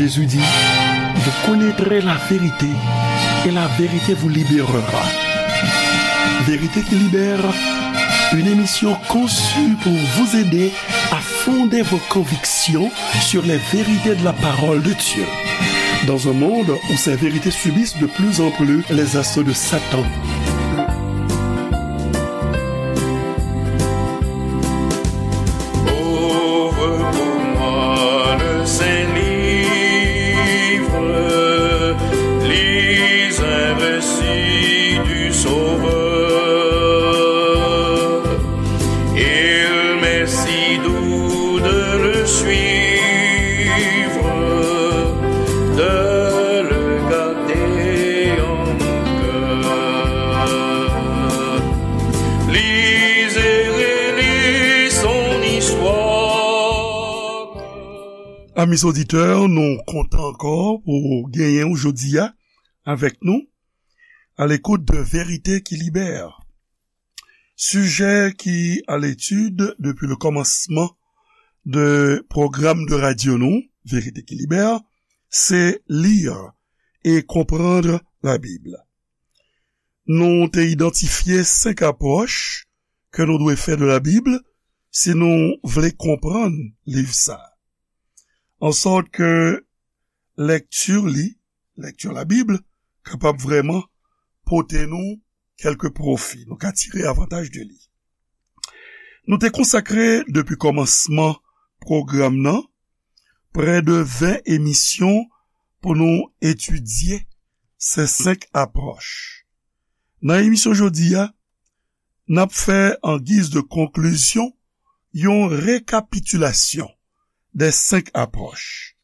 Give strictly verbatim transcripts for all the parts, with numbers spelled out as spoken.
Jésus dit, vous connaîtrez la vérité et la vérité vous libérera. Vérité qui libère, une émission conçue pour vous aider à fonder vos convictions sur les vérités de la parole de Dieu. Dans un monde où ces vérités subissent de plus en plus les assauts de Satan. Ouvre pour moi le saint livre, lis un récit du Sauveur. Il m'est si doux de le suivre, de le garder en mon cœur. Lis et relis son histoire. Amis auditeurs, nou kontan ankò pou genyen w jodi a avèk nou, à l'écoute de Vérité qui libère. Sijè ki à l'étude depuis le commencement de pwogram de radyo nou, Vérité qui libère, se lire et comprendre la Bible. Nou te idantifye senk apwòch ke nou dwe fè de la Bible si nou vle konprann liv sa a. An sòt ke lèkti li, lèkti la Bib, kapab vrèman pote nou kèlke pwofi. Nou ka tire avantaj de li. Nou te konsakre depi kòmansman pwogram nan prè de ven emisyon pou nou etidye se senk apwòch. Nan emisyon jodi a, n ap fè an giz de konklizyon yon rekapitilasyon de senk apwòch.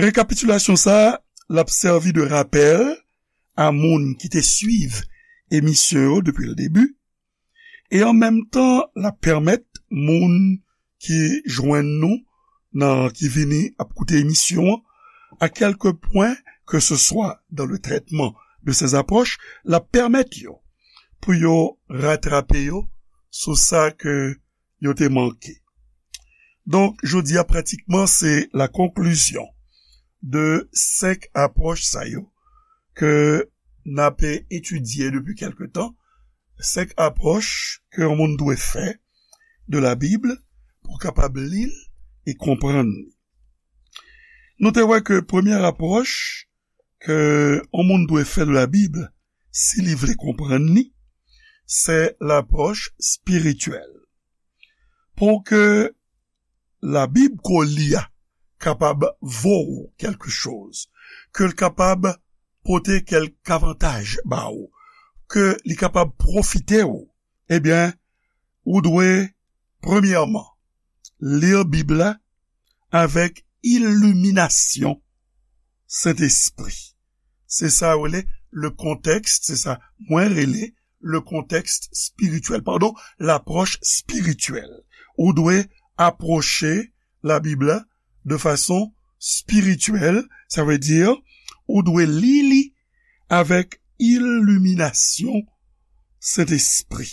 Rekapitilasyon sa a, l ap sèvi de rapèl a moun ki te swiv emisyon yo depi le debi, e an menm tan, l ap pèmèt moun ki jwenn nou nan, ki vini ap koute emisyon an, à quelque point que ce soit dans le traitement de ces approches, l ap pèmèt yo pou yo ratrape yo sou sa ke yo te manke. Donk, jodi a, pratikman, se la conclusion de senk apwòch sa yo ke n ap etidye depi kèlke tan, senk apwòch ke yon moun dwe fè de la Bib pou kapab li l e konprann li. Nou te wè ke premyè apwòch ke yon moun dwe fè de la Bib si li vle konprann li, se lapwòch espirityèl. Pou ke la Bib ke w li a kapab vo w kèlke choz, ke l kapab pote kèlk avantaj ba w, ke li kapab pwofite w, ebyen, ou dwe, premyèman, li Bib la avèk iliminasyon Sentespri. Se sa yo rele le contexte, se sa mwen rele le contexte spirituel, padon, lapwòch espirityèl. Ou dwe apwoche la Bib la de fason espirityèl, sa vle di, ou dwe li li avèk iliminasyon Sentespri.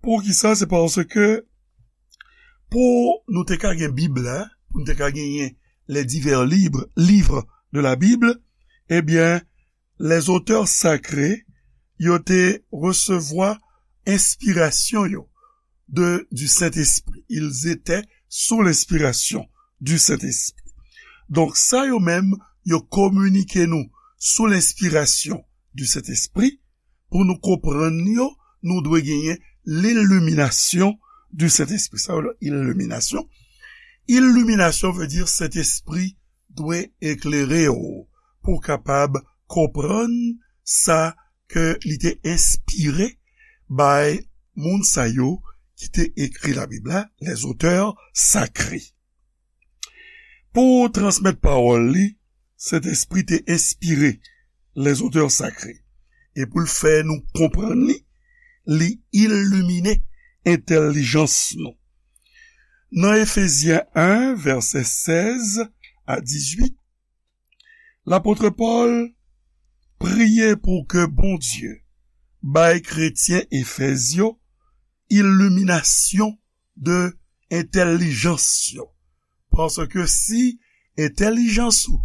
Poukisa? Se paske pou nou te ka gen Bib la, pou nou te ka genyen les divers libres, livres de la Bible, ebyen, les auteurs sacrés, yo te resevwa enspirasyon yo de, du Saint-Esprit. Ils étaient sous l'inspiration du Saint-Esprit. Donk, sa yo menm, yo kominike nou sou lenspirasyon du Saint-Esprit. Pou nou konprann yo, nou dwe genyen l'illumination du Saint-Esprit. Sa yo rele iliminasyon. Iliminasyon vle di Sentespri dwe eklere w pou w kapab konprann sa ke li te enspire bay moun sa yo ki te ekri Labib la, les auteurs sacrés. Pou transmèt pawòl li, Sentespri te enspire les auteurs sacrés. E pou l fè nou konprann li, li ilimine entèlijans nou. Nan Efezyen en, vèsè sèz a dizuit, lapot Pòl priye pou ke Bondye bay kretyen Efèz yo iliminasyon de entèlijans yo. Paske si entèlijans ou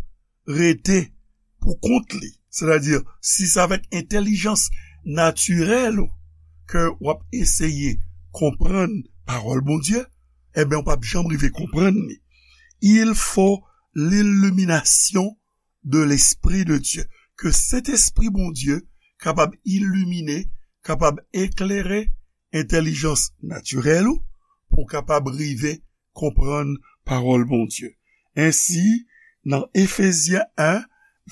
rete pou kont li, sètadi si se avèk entèlijans natirèl ou ke w ap eseye konprann pawòl Bondye, ebyen, w p ap janm rive konprann li. Il faut l'illumination de l'Esprit de Dieu. Ke Sentespri Bondye kapab ilimine, kapab eklere entèlijans natirèl ou, pou w kapab rive konprann pawòl Bondye. Ensi, nan Efezyen en,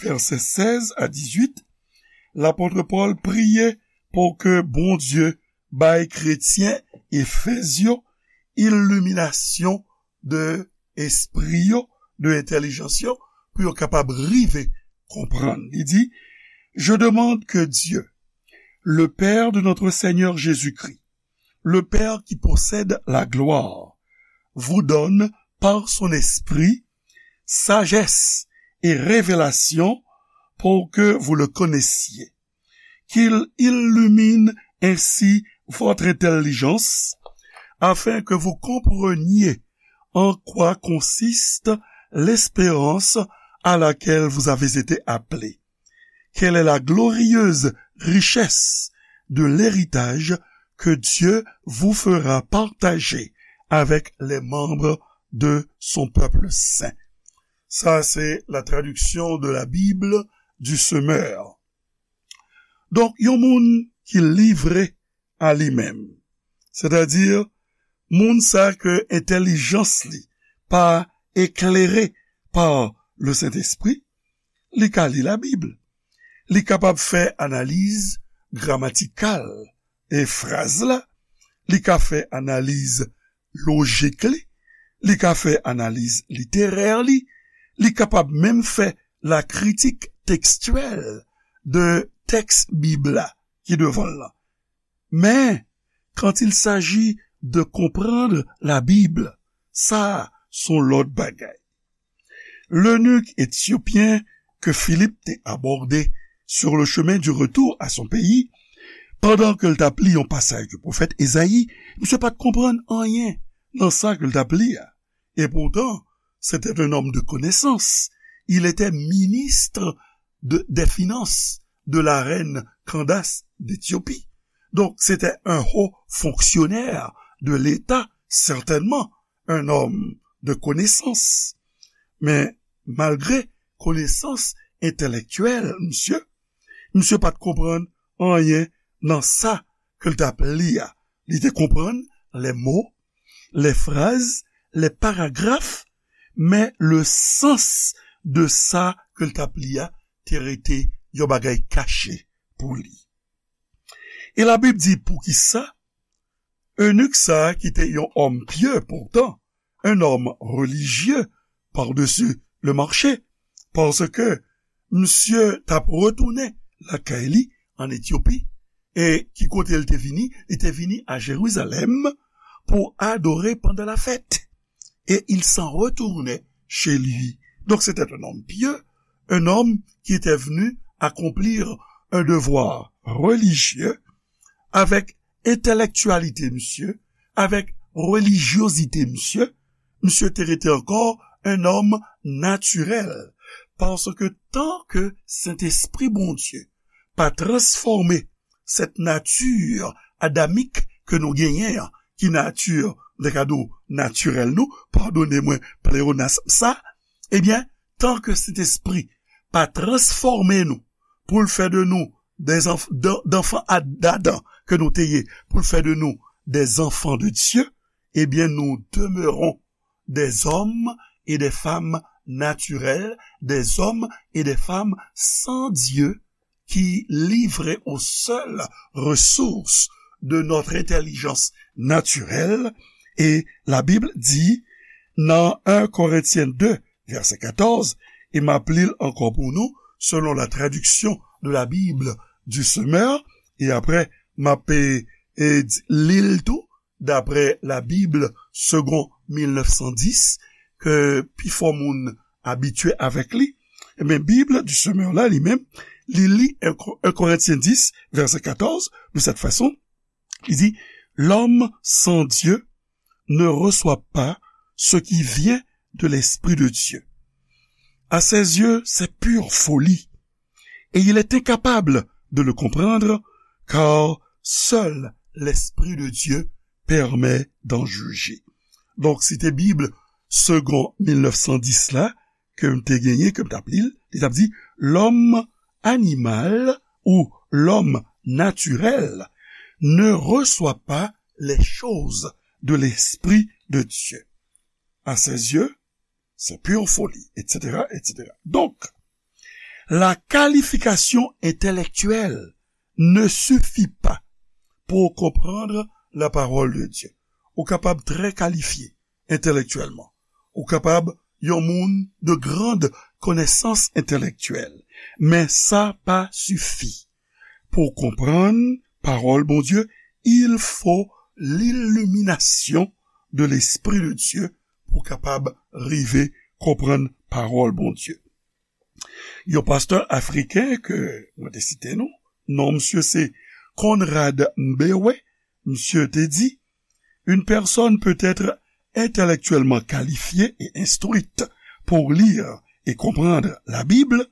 vèsè sèz a dizuit, lapòt Pòl priye pou ke Bondye bay kretyen Efez yo iliminasyon de espri yo, de entèlijans yo, pou yo kapab rive konprann. Li di, Je demande que Dieu, le Père de notre Seigneur Jésus-Christ, le Père qui possède la gloire, vous donne par son Esprit sagesse et révélation pour que vous le connaissiez, qu'il illumine ainsi votre intelligence, afin que vous compreniez en quoi consiste l'espérance à laquelle vous avez été appelés, quelle est la glorieuse richesse de l'héritage que Dieu vous fera partager avec les membres de son peuple saint. Sa se la traduction de la Bible du semeur. Donk, yon moun ki livre a li menm, sètadi moun sa ke entèlijans li pa eklere pa le Sentespri, li ka li Labib. Li kapab fè analiz gramatikal e fraz la, li ka fè analiz lojik li, li ka fè analiz literè li, li kapab menm fè la critique textuelle de tèks Bib la ki devan l lan. Men, quand il s'agit de comprendre la Bible, sa a se yon lòt bagay. Lenik etyopyen ke Filip te abòde sur le chemin du retour à son pays, pandan ke l t ap li yon pasaj de pwofèt Ezayi, misye pa t konprann anyen nan sa ke l t ap li a. Et pourtant, c'était un homme de connaissance. Il était ministre de, des finances de la reine Candace d'Éthiopie. Donc, c'était un haut fonctionnaire de l'État, certainement, un homme de connaissance. Men, malgre konesans entèlektyèl misye, misye pa t konprann anyen nan sa ke l t ap li a. Li te konprann les mots, les phrases, les paragraphes, men le sens de sa ke l t ap li a te rete yon bagay kache pou li. E Labib di poukisa eunik sa a ki te yon òm pye poutan, un homme religieux par-dessus le marché, paske misye t ap retounen lakay li an Etyopi, e ki kote l te vini? Li te vini a Jerizalèm pou adore pandan la fèt. Et il s'en retournait chez lui. Donc c'était un homme pieux, un homme qui était venu accomplir un devoir religieux avec entèlektyalite misye, avec relijyozite misye, misye te rete ankò un homme naturel. Paske tan ke Sentespri Bondye pa transfòme cette nature adamique ke nou genyen an, ki nati, m ta ka di w, natirèl nou, padone mwen, pleonasm sa, ebyen, tan ke Sentespri pa transfòme nou pou l fè de nou des enf-, d'an-, d'enfants à, d'Adam ke nou te ye, pou l fè de nou des enfants de Dieu, ebyen, nous demeurons des hommes et des femmes naturels, des hommes et des femmes sans Dieu, qui livrés aux seules ressources de notre intelligence naturelle. Et la Bible dit, nan un Corinthiens deux, verset quatorze, e m ap li l ankò pou nou, selon la traduction de la Bible du semeur, e apre, m ap, e, e, di, li l tou, d'après la Bible Second mil nèf san dis, ke pifò moun abitye avèk li, ebyen, Bib du semeur la, li menm, li li un Co-, un Corinthiens dix, verset quatorze, de cette façon, li di, L'homme sans Dieu ne reçoit pas ce qui vient de l'Esprit de Dieu. À ses yeux, c'est pure folie, et il est incapable de le comprendre, car seul l'Esprit de Dieu permet d'en juger. Donk, site Bib Segond mil nèf san dis la, ke m te genyen, ke m t ap li l, li t ap di, l'homme animal ou l'homme naturel ne reçoit pas les choses de l'Esprit de Dieu. À ses yeux, c'est pure folie, et cetera, et cetera. Donc, la qualification intellectuelle ne suffit pas pour comprendre la parole de Dieu. Ou kapab trè kalifye entèlektyèlman. Ou kapab yon moun de grande connaissance intellectuelle. Men sa pa sifi. Pou konprann pawòl Bondye, il faut l'illumination de l'Esprit de Dieu pou kapab rive konprann pawòl Bondye. Yon pastè afriken ke mwen te site non, non misye se Conrad Mbewe, misye te di, une personne peut être intellectuellement qualifiée et instruite pour lire et comprendre la Bible,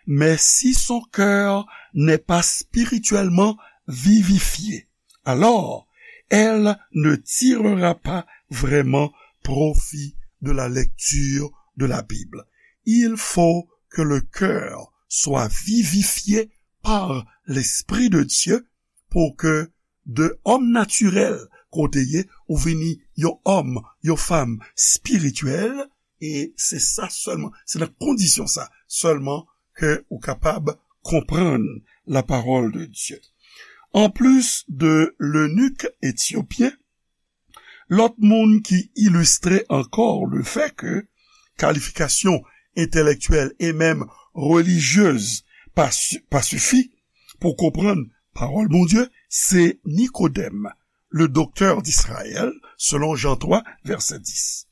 mais si son cœur n'est pas spirituellement vivifié, alors elle ne tirera pas vraiment profit de la lecture de la Bible. Il faut que le cœur soit vivifié par l'Esprit de Dieu pour que de homme naturel ke w te ye, ou vini yon òm, yon fanm espirityèl, e se sa sèlman, se nan kondisyon sa sèlman ke ou kapab konprann la parole de Dieu. En plus de l'eunuque éthiopien, lòt moun ki ilistre ankò le fait que qualification intellectuelle et même religieuse pa, pa sifi pou konprann pawòl Bondye, se Nikodèm, le docteur d'Israël, selon Jean trois, verset dix.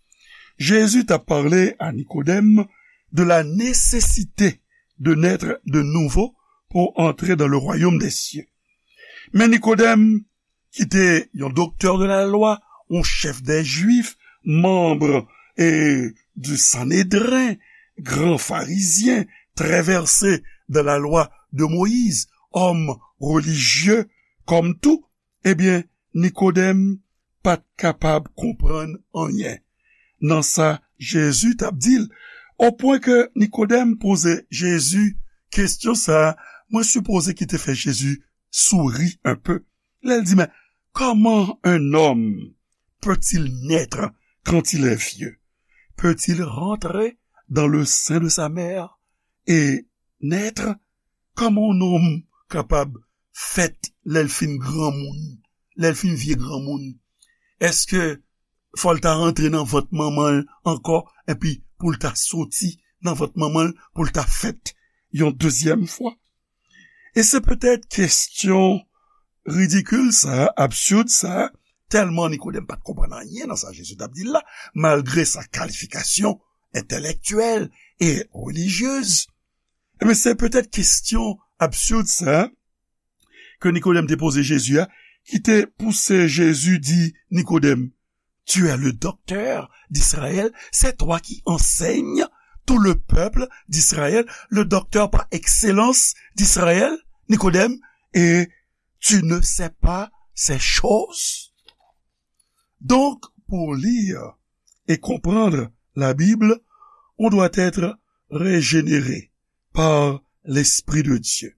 Jésus t'a parlé à Nicodème de la nécessité de naître de nouveau pour entrer dans le royaume des cieux. Men Nikodèm, ki te yon doktè de la lwa, yon chèf dè Jwif, manm e di Sanedren, gran farizyen, trè vèse dan la lwa de Moyiz, òm relijye kòm tou, ebyen, Nikodèm pa t kapab konprann anyen nan sa Jezi t ap di l, opwen ke Nikodèm poze Jezi kesyon sa a, mwen sipoze ki te fè Jezi souri un peu. Lè l di, mais comment un homme peut-il naître quand il est vieux? Peut-il rentrer dans le sein de sa mère et naître? Kòman yon nonm kapab fèt lè l fin granmoun, lè l fin vye granmoun? Èske fò l ta rantre nan vant manman l ankò, epi pou l ta soti nan vant manman l, pou l ta fèt yon dezyèm fwa? E se petèt kesyon ridikil sa a, absid sa a, tèlman Nikodèm pa t konprann anyen nan sa Jezi t ap di l la, malgre sa kalifikasyon entèlektyèl e relijyez. Ebyen, se petèt kesyon absid sa a ke Nikodèm te poze Jezi a, ki te pouse Jezi di Nikodèm, tu es le docteur d'Israël, c'est toi qui enseignes tout le peuple d'Israël, le docteur par excellence d'Israël, Nikodèm, et tu ne sais pas ces choses? Donc, pour lire et comprendre la Bible, on doit être régénéré par l'Esprit de Dieu.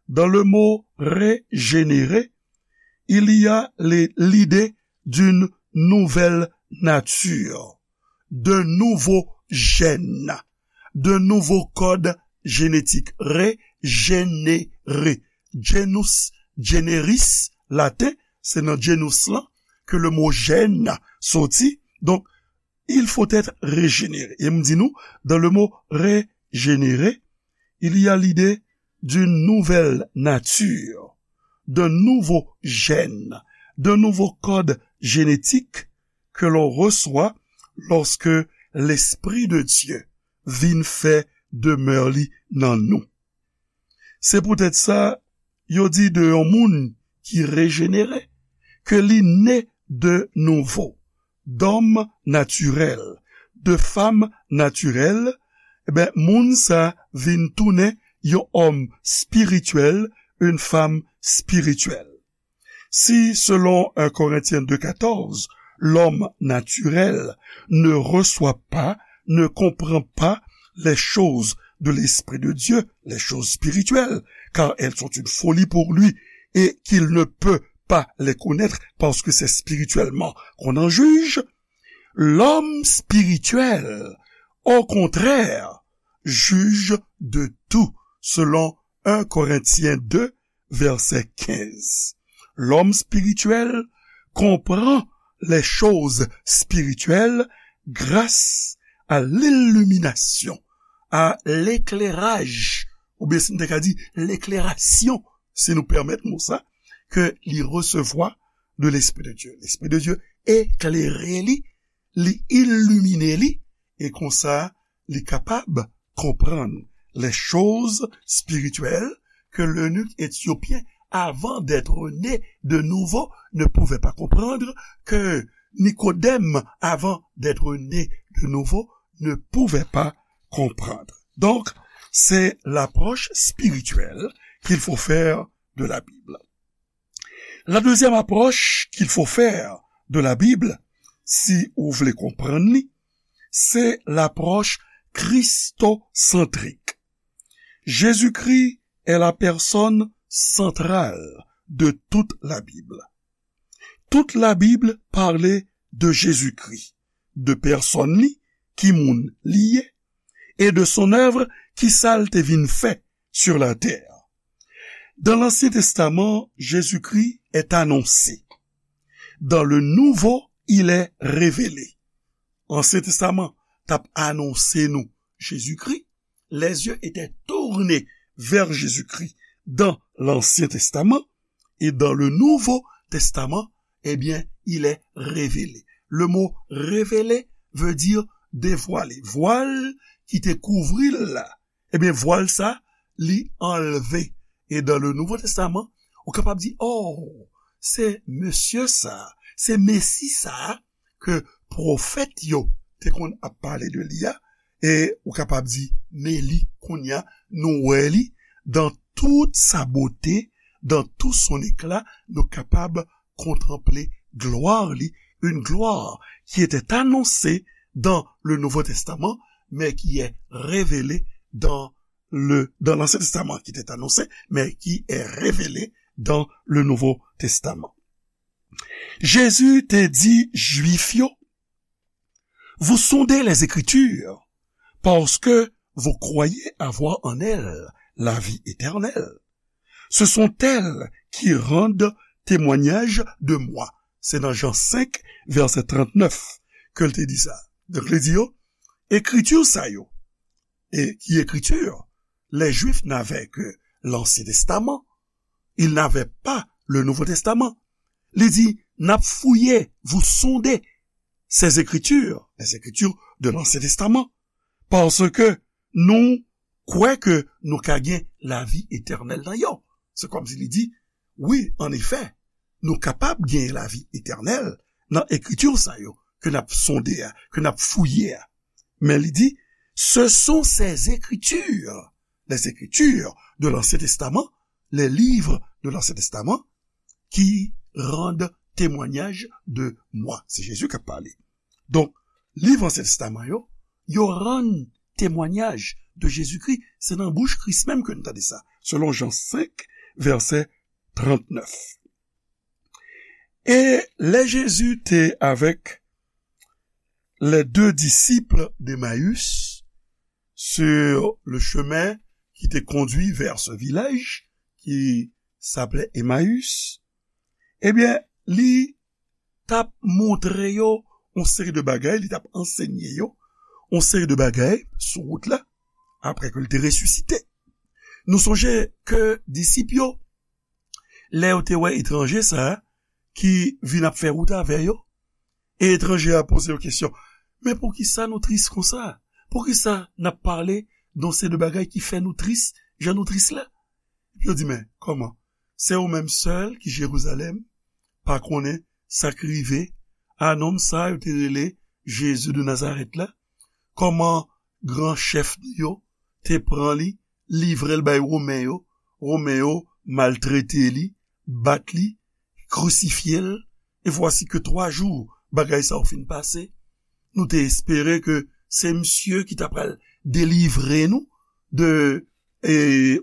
Dans le mot régénérer, il y a les, l'idée d'une nouvelle nature, de nouveaux gènes, de nouveaux codes génétiques. Régénérer. Genus, generis, laten, se nan genus lan ke le mo gène soti. Donk, il faut être régénéré. E m di nou, dans le mot régénérer, il y a l'idée d'une nouvelle nature, d'un nouveau gène, d'un nouveau code génétique que l'on reçoit lorsque l'Esprit de Dieu vin fè demè li nan nou. Se poutèt sa, yo di de yon moun ki rejenere, ke li ne de nouvo, d'homme naturel, de femme naturelle, Ebyen, moun sa vin tounen yon òm spirityèl, une femme spirituelle. Si, selon un Corinthiens deux quatorze, l'homme naturel ne reçoit pas, ne comprend pas les choses de l'Esprit de Dieu, les choses spirituelles, car elles sont une folie pour lui, et qu'il ne peut pas les connaître parce que c'est spirituellement qu'on en juge, l'homme spirituel, au contraire, juge de tout, selon un Corinthiens deux, verset quinze. L'homme spirituel comprend les choses spirituelles grâce à l'illumination, à l'éclairage, oubyen si n te ka di l'éclairasyon, si nou pèmèt mo sa, ke li resevwa de Lespri de Dye. Lespri de Dye eklere li, li ilimine li, e konsa, li kapab konprann les choses spirituelles que l'eunuque éthiopien, avant d'être né de nouveau, ne pouvait pas comprendre, que Nicodème, avant d'être né de nouveau, ne pouvait pas comprendre. Donc, c'est l'approche spirituelle qu'il faut faire de la Bible. La deuxième approche qu'il faut faire de la Bible, si ou vle konprann li, c'est l'approche christocentrique. Jésus-Christ est la personne centrale de toute la Bible. Toute la Bible parle de Jésus-Christ, de pèsòn li, ki moun li ye, et de son œuvre, ki sa l te vin fè sur la terre. Dans l'Ancien Testament, Jésus-Christ est annoncé. Dans le Nouveau, il est révélé. Ansyen Testaman t ap anonse nou Jezikri. Les yeux étaient tournés vers Jésus-Christ dans l'Ancien Testament et dans le Nouveau Testament, eh bien, il est révélé. Le mot révélé veut dire dévoilé. Vwal ki te kouvri l la, ebyen, vwal sa, li anlve. E dans le Nouveau Testament, ou kapab di, oh, se mesye sa, se Mesi sa ke pwofèt yo te konn ap pale de li a, e ou kapab di, men li, kounye a, nou wè li, dans toute sa beauté, dans tout son éclat, nou kapab kontanple glwa li, une gloire qui était annoncée dans le Nouveau Testament, mais qui est révélée dans le, dans l'Ancien Testament, qui était annoncée, mais qui est révélée dans le Nouveau Testament. Jezi te di Jwif yo, vous sondez les Écritures, parce que vous croyez avoir en elles la vie éternelle. Ce sont elles qui rendent témoignage de moi. Se nan Jan senk, vèsè trannèf, ke l te di sa. Donk, li di yo, ekriti sa yo, e ki ekriti? Les Juifs n'avaient que l'Ancien Testament. Ils n'avaient pas le Nouveau Testament. Li di, n ap fouye, vous sondez ces Écritures, les Écritures de l'Ancien Testament, parce que nou kwè ke nou ka gen lavi etènèl nan yo. Se kòmsi li di, wi, an efè, nou kapab gen lavi etènèl nan ekriti sa yo ke n ap sonde a, ke n ap fouye a. Men li di, ce sont ces Écritures, les Écritures de l'Ancien Testament, les livres de l'Ancien Testament, qui rendent témoignage de moi. Se Jezi k ap pale. Donk, liv Ansyen Testaman yo, yo rann temwanyaj de Jezikri. Se nan bouch Kris menm ke nou tande sa, selon Jan senk, vèsè trannèf. Et lè Jezi te avec les deux disciples d'Emmaüs sur le chemin qui te conduit vers ce village qui s'appelait Emmaüs, ebyen, li t ap montre yo yon seri de bagay, li t ap ansenye yo yon seri de bagay sou wout la, apre ke l te resisite. Nou sonje ke disip yo, lè yo te wè etranje sa a ki vin ap fè wout avè yo, e etranje a poze yo kesyon, men poukisa nou tris konsa? Poukisa n ap pale de yon seri de bagay ki fè nou tris, jan nou tris la? Epi yo di, men, kòman? Se ou menm sèl ki Jerizalèm pa konnen sa k rive a nonm sa yo te rele Jezi de Nazarèt la? Kòman gran chèf nou yo te pran li, livre l bay Women yo. Women yo maltrete li, bat li, krisifye l, e vwasi ke twa jou bagay sa yo fin pase. Nou te espere ke se misye ki ta pral delivre nou de, e,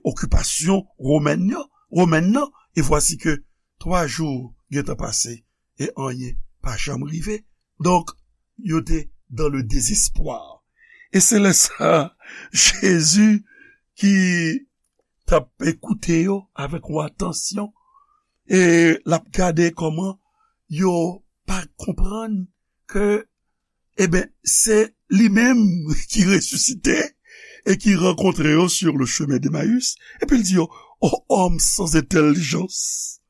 okipasyon womèn nan, womèn nan, e vwasi ke twa jou gentan pase e anyen pa janm rive. Donk, yo te dans le désespoir. E se lè sa, Jezi ki t ap ekoute yo avèk yon atansyon, e l ap gade kòman yo pa konprann ke, eben, se li menm ki resisite e ki rankontre yo sur le chemin d'Emmaüs, epi l di yo, ô homme sans intelligence,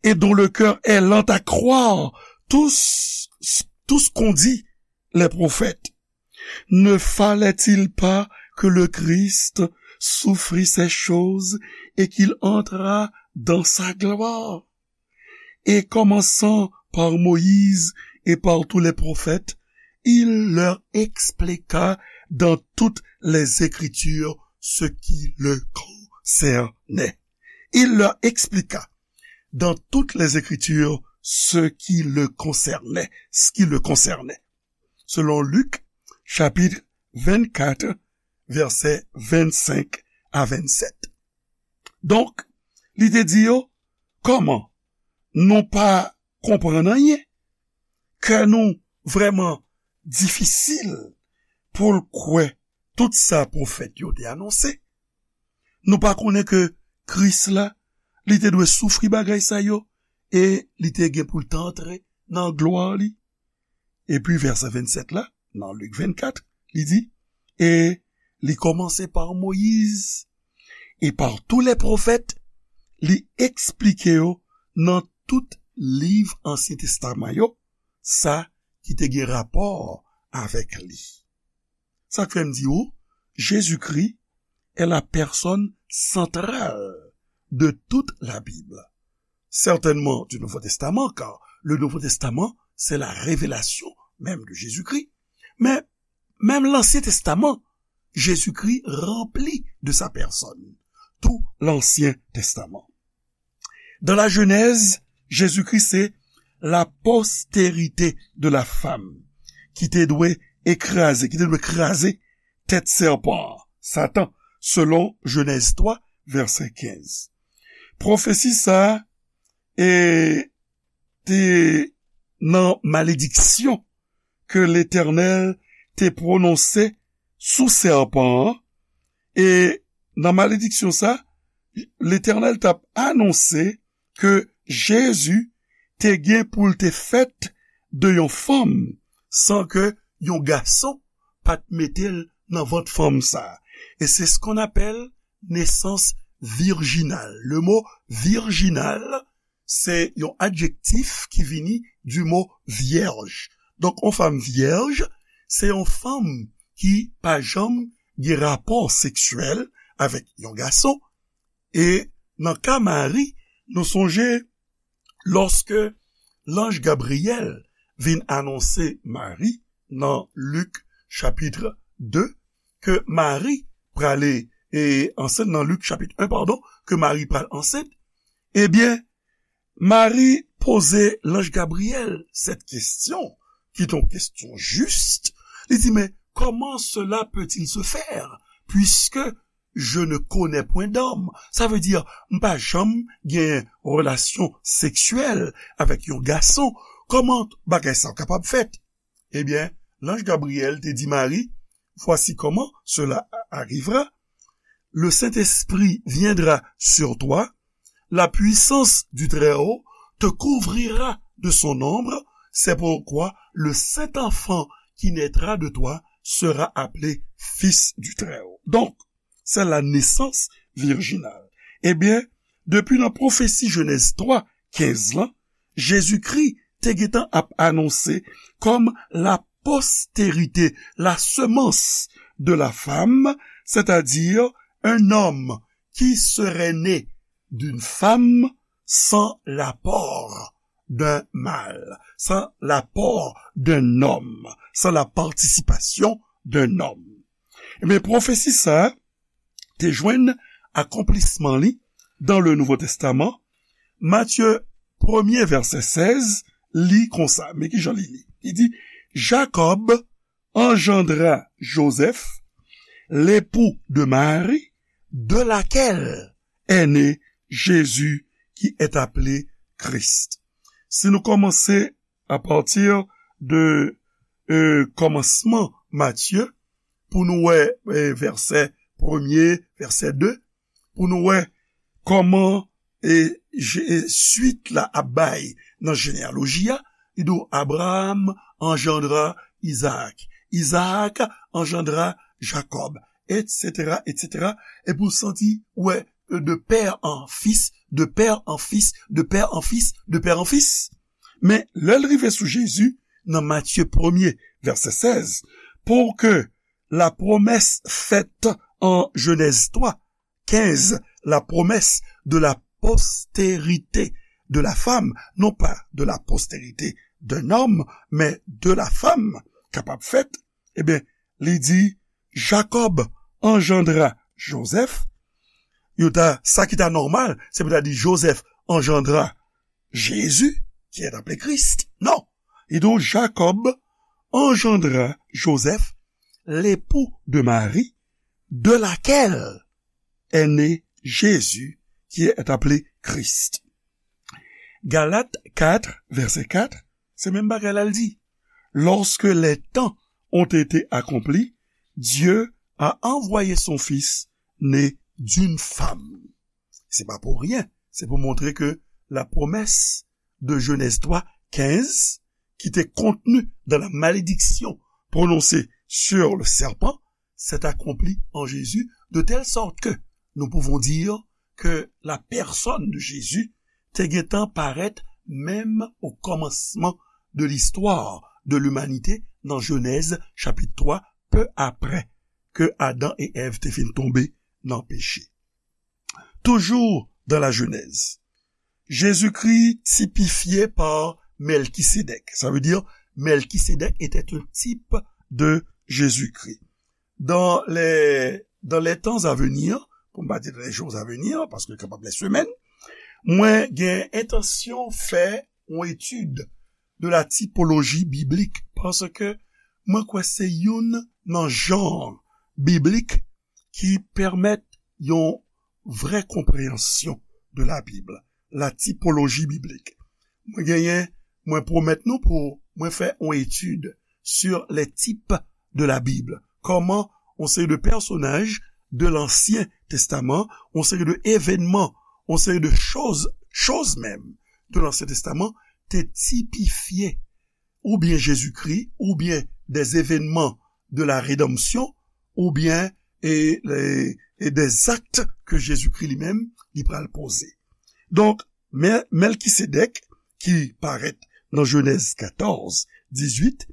et dont le cœur est lent à croire tout ce, tout ce qu'ont dit les prophètes. Ne fallait-il pas que le Christ souffrit ces choses et qu'il entrât dans sa gloire? Et commençant par Moïse et par tous les prophètes, il leur expliqua dans toutes les Écritures ce qui le concernait. Il leur expliqua dans toutes les Écritures ce qui le concernait, ce qui le concernait. Selon Lik, chapit vennkat, vèsè vennsenk a vennsèt. Donk, li te di yo, kòman nou pa konprann anyen? Kè nou vrèman difisil pou l kwè tout sa pwofèt yo te anonse? Nou pa konnen ke Kris la, li te dwe soufri bagay sa yo, e li te gen pou l te antre nan glwa li? Epi vèsè vennsèt la, nan Lik vennkat, li di, e li kòmanse pa Moyiz, e pa tou lè pwofèt, li eksplike yo nan tout liv Ansyen Testaman yo, sa ki te gen rapò avèk li. Sa k fè m di ou, Jezikri est la personne centrale de toute la Bible. Certainement du Nouveau Testament, car le Nouveau Testament, c'est la révélation même de Jésus-Christ. Mais même l'Ancien Testament, Jésus-Christ remplit de sa personne tout l'Ancien Testament. Dans la Genèse, Jésus-Christ, c'est la postérité de la femme ki te dwe ekraze, ki te dwe kraze tèt sèpan an, Satan, selon Jenèz twa, vèsè kenz. Pwofesi sa a, e, te nan malediksyon ke Letènèl te pwononse sou sèpan an, e nan malediksyon sa, Letènèl t ap anonse ke Jezi te gen pou l te fèt de yon fanm san ke yon gason pa t mete l nan vant fanm sa. E c'est ce qu'on appelle naissance virginale. Le mot virginal, se yon adjektif ki vini du mot vierge. Donk, yon fanm vyèj, se yon fanm ki pa janm gen rapò seksyèl avèk yon gason. E nan ka Mari, nou sonje lòske lanj Gabriyèl vin anonse Mari nan Lik chapit de, ke Mari prale, e ansent nan Lik chapit en, padon, ke Mari pral ansent, ebyen, Mari poze lanj Gabriyèl cette question, qui est une question juste. Li di, mais comment cela peut-il se faire, puisque je ne connais point d'homme? Sa vle di, m pa janm gen relasyon seksyèl avèk yon gason. Kòman bagay sa kapab fèt? Ebyen, lanj Gabriyèl te di Mari, voici comment cela arrivera. Le Saint-Esprit viendra sur toi, la puissance du Très-Haut te couvrira de son ombre, c'est pourquoi le saint enfant qui naîtra de toi sera appelé fils du Très-Haut. Donk, c'est la naissance virginale. Ebyen, depi nan pwofesi Jenèz twa kenz lan, Jezikri te gentan ap anonse kòm la postérité, la semence de la femme, c'est-à-dire un homme qui serait né d'une femme sans l'apport d'un mâle, sans l'apport d'un homme, sans la participation d'un homme. Ebyen, pwofesi sa a te jwenn akonplisman li dans le Nouveau Testament. Matye premye, vèsè sèz, li konsa. Men ki jan li li? Li di, Jacob engendra Joseph, l'époux de Marie, de laquelle est né Jésus qui est appelé Christ. Si nou kòmanse apati de euh, kòmansman Matye, pou nou wè euh, vèsè premye, vèsè de, pou nou wè kòman e, e swit la ap bay nan jeneyaloji a, li di w Abraham engendra Isaac, Isaac engendra Jacob, et cetera, et cetera. Epi w santi, wè, de père en fils, de père en fils, de père en fils, de père en fils. Men lè l rive sou Jezi, nan Matye premye, vèsè sèz, pour que la promesse faite en Genèse trois, quinze, la promesse de la postérité de la femme, non pas de la postérité d'un homme, mais de la femme, kapab fèt, ebyen, li di, Jacob engendra Joseph. Yo ta, sa ki ta nòmal, se pou ta di Joseph engendra Jésus, qui est appelé Christ. Non. Et donc, Jacob engendra Joseph, l'époux de Marie, de laquelle est né Jésus, qui est appelé Christ. Galat kat, vèsè kat, se menm bagay la l di. Lorsque les temps ont été accomplis, Dieu a envoyé son Fils né d'une femme. Se pa pou ryen, se pou montre ke la promesse de Genèse trois quinze, qui était contenue dans la malédiction prononcée sur le serpent, s'est accomplie en Jésus, de telle sorte que nous pouvons dire que la personne de Jésus te gentan parèt menm au commencement de l'histoire de l'humanité dans Genèse chapitre trois, peu après que Adam et Ève te fin tonbe nan peche. Toujours dans la Genèse, Jésus-Christ typifié par Melchisédek. Ça veut dire, Melchisédek était un type de Jésus-Christ. Dans les, dans les temps à venir, pou m pa di les jours à venir, paske kapab les semaines, mwen gen entansyon fè yon etid de la typologie biblique, paske mwen kwè se youn nan jan biblik ki pèmèt yon vrè konpreyansyon de la Bib, la typologie biblique. Mwen genyen, mwen pwomèt nou pou mwen fè yon etid sur les types de la Bible. Kòman yon seri de pèsonaj de Lansyen Testaman, yon seri de evènman, yon seri de choz, choz menm de Lansyen Testaman te tipifye oubyen Jezikri, oubyen des événements de la rédemption, oubyen e, e, e des actes que Jésus-Christ li menm li pral poze. Donk, Mè-, Mèlkisedèk, ki parèt nan Jenèz katòz, dizuit,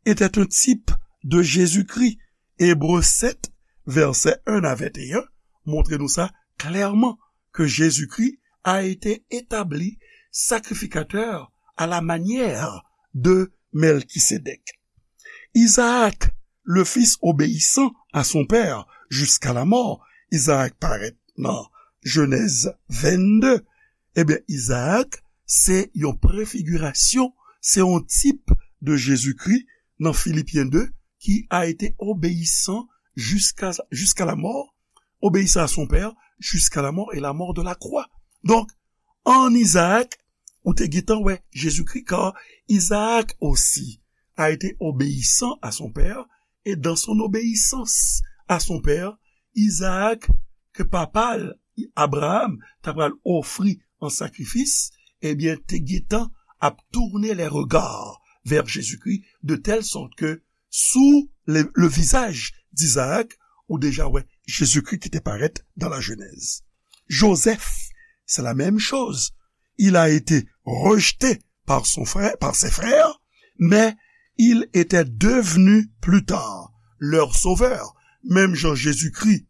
était un type de Jésus-Christ. Ebre sèt, vèsè en a venteyen, montre nou sa klèman, que Jésus-Christ a été établi sacrificateur à la manière de Melchisédek. Isaac, le fils obéissant à son père jusqu'à la mort. Isaac parèt nan Jenèz vennde. Ebyen, Isaac, se yon prefigirasyon, se yon tip de Jezikri nan Filipyen de, qui a été obéissant jusqu'à, jusqu'à la mort, obéissant à son père, jusqu'à la mort et la mort de la croix. Donk, an Isaac, ou te gentan wè Jezikri, car Isaac aussi a été obéissant à son père, et dans son obéissance à son père, Isaac, ke papa l, Abraham, ta pral ofri an sakrifis, ebyen, te gentan ap tourner les regards vers Jésus-Christ, de telle sorte que sous le, le visage d'Isaac, ou deja wè Jezikri ki te parèt dans la Genèse. Joseph, c'est la même chose. Il a été rejeté par son frère, par ses frères, mais il était devenu plus tard leur sauveur. Menm jan Jezikri,